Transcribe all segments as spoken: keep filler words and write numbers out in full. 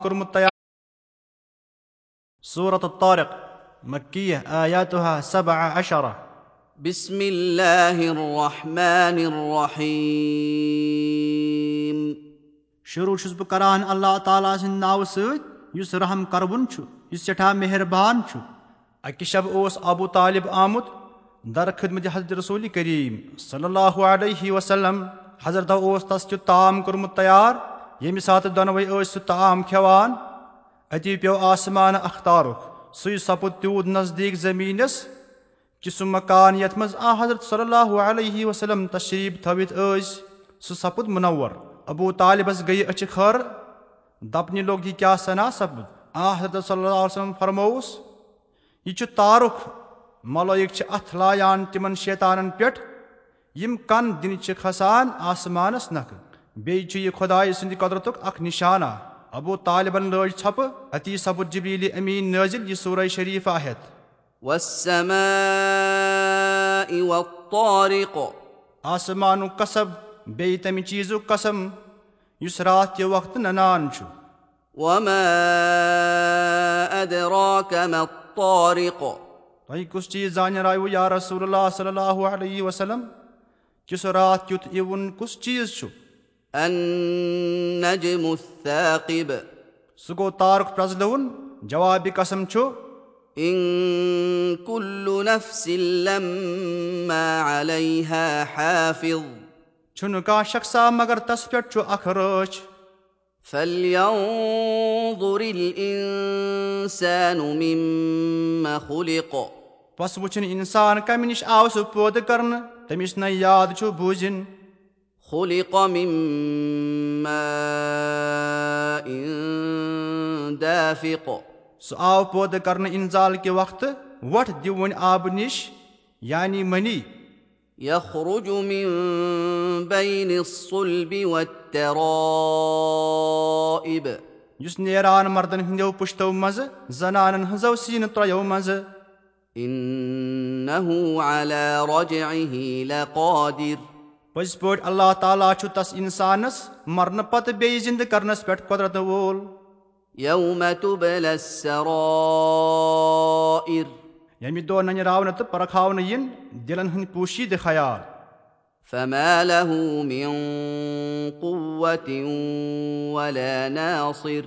کوٚرمُت تیار۔ سورۃ الطارق، مکیہ، آیاتها سبع عشرہ۔ بسم اللہ الرحمن الرحیم۔ شروع چھُس بہٕ کران اللہ تعالیٰ سٕنٛدِ ناوٕ سۭتۍ، یُس رحم کروُن چھُ، یُس سٮ۪ٹھاہ مہربان چھُ۔ اکہِ شب اوس ابو طالب آمُت در خدمت حضرت رسول کریم صلی اللہ علیہ وسلم۔ حضرت اوس تس کیُت طعام کوٚرمُت تیار، ییٚمہِ ساتہٕ دۄنوے ٲسۍ سُہ طعام کھٮ۪وان۔ اتی پیوٚو آسمان اکھ تارُک، سُے سپُد تیوٗت نزدیٖک زمینس کہِ سُہ مکان یتھ منٛز آ حضرت صلی اللہ علیہ وسلم تشریف تھٲوِتھ ٲسۍ، سُہ سپُد منور۔ ابو طالبس گٔیہِ أچھِ خٲر، دپنہِ لوٚگ، یہِ کیٛاہ سنا سپُد؟ آ حضرت صلی اللہ علیہ وسلم فرمووُس، یہِ چھُ تارُک، ملٲیِک چھِ اتھٕ لایان تِمن شیطانن پٮ۪ٹھ، یِم کن دِنہِ چھِ کھسان آسمانس نکھٕ۔ بیٚیہِ چھُ یہِ خۄدایہِ سٕنٛدِ قۄدرتُک اکھ نشانہ۔ ابو طالبن لٲج ژھۄپہٕ، اتی سپُد جبریل امین نٲزِل یہِ سورہ شریفہ ہٮ۪تھ۔ والسماء والطارق۔ آسمانُک قسم، بیٚیہِ تمہِ چیٖزُک قسم، یُس راتھ کہِ وقتہٕ ننان چھُ۔ وما أدراك ما الطارق۔ تۄہہِ کُس چیٖز زانراوٕ یا رسول اللہ صلی اللہ علیہ وسلم کہِ سُہ راتھ کیُتھ یِوُن کُس چیٖز چھُ؟ النجم الثاقب۔ سُہ گوٚو تارُک پرٛزلوُن۔ جوابِ قسم چھُ، إن كل نفس لما عليها حافظ۔ چھُنہٕ کانٛہہ شخصا مگر تس پٮ۪ٹھ چھُ اکھ رٲچھ۔ فلينظر الإنسان مم خلق۔ پس وٕچھِن انسان کمہِ نِش آو سُہ پٲدٕ کرنہٕ، تٔمِس نَے یاد چھُ بوٗزِن۔ خلق من ماء دافق۔ سُہ آو پٲدٕ کرنہٕ انزال کہِ وقتہٕ وۄٹھ دِوٕنۍ آبہٕ نِش، یعنی منی۔ يخرج من بين الصلب والترائب۔ یُس نیران مردن ہٕنٛدیو پُشتو منٛزٕ، زنانن ہٕنٛزو سیٖنہٕ ترٛیو منٛزٕ۔ إنه على رجعه لقادر۔ پٔزۍ پٲٹھۍ اللہ تعالیٰ چھُ تس انسانس مرنہٕ پتہٕ بیٚیہِ زِندٕ کرنس پٮ۪ٹھ قۄدرت وول۔ يوم تبلى السرائر۔ ییٚمہِ دۄہ ننہِ راونہٕ تہٕ پرکھاونہٕ یِن دِلن ہٕنٛدۍ پوشیدٕ خیال۔ فما له من قوة ولا ناصر۔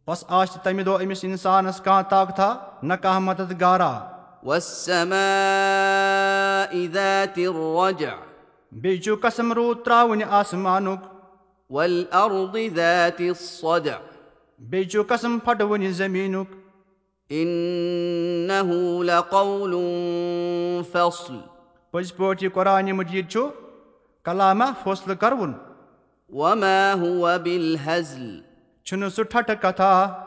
پس آسہِ تمہِ دۄہ أمِس انسانس کانٛہہ طاقتہ، نہ کانٛہہ مددگارا۔ والسماء ذات الرجع۔ بیٚیہِ چھُ قسم روٗد ترٛاوٕنہِ آسمانُک۔ والأرض ذات الصدع۔ بیٚیہِ چھُ قسم پھٹوٕنہِ زمینُک۔ إنه لقول فصل۔ پٔزۍ پٲٹھۍ یہِ قرآن مجید چھُ کلامہ فٲصلہٕ کروُن۔ وما هو بالهزل۔ چھُنہٕ سُہ ٹھٹھٕ کتھا۔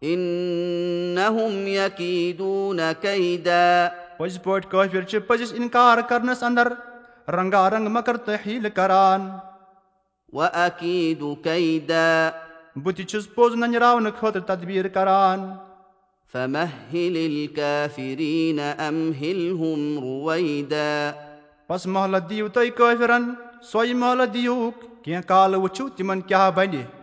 إنهم يكيدون كيدا۔ پٔزۍ پٲٹھۍ کٲفِر چھِ پٔزِس انکار کرنس اندر رنگا رنگ مکر تہٕ حیلہٕ کران۔ وأكيد كيدا۔ بہٕ تہِ چھُس پوٚز ننراونہٕ خٲطرٕ تدبیر کران۔ فمهل الكافرين أمهلهم رويدا۔ پس مہلت دِیِو تُہۍ کٲفرن، سۄے مہلت دِیوکھ، کینٛہہ کالہٕ وٕچھِو تِمن کیٛاہ بنہِ۔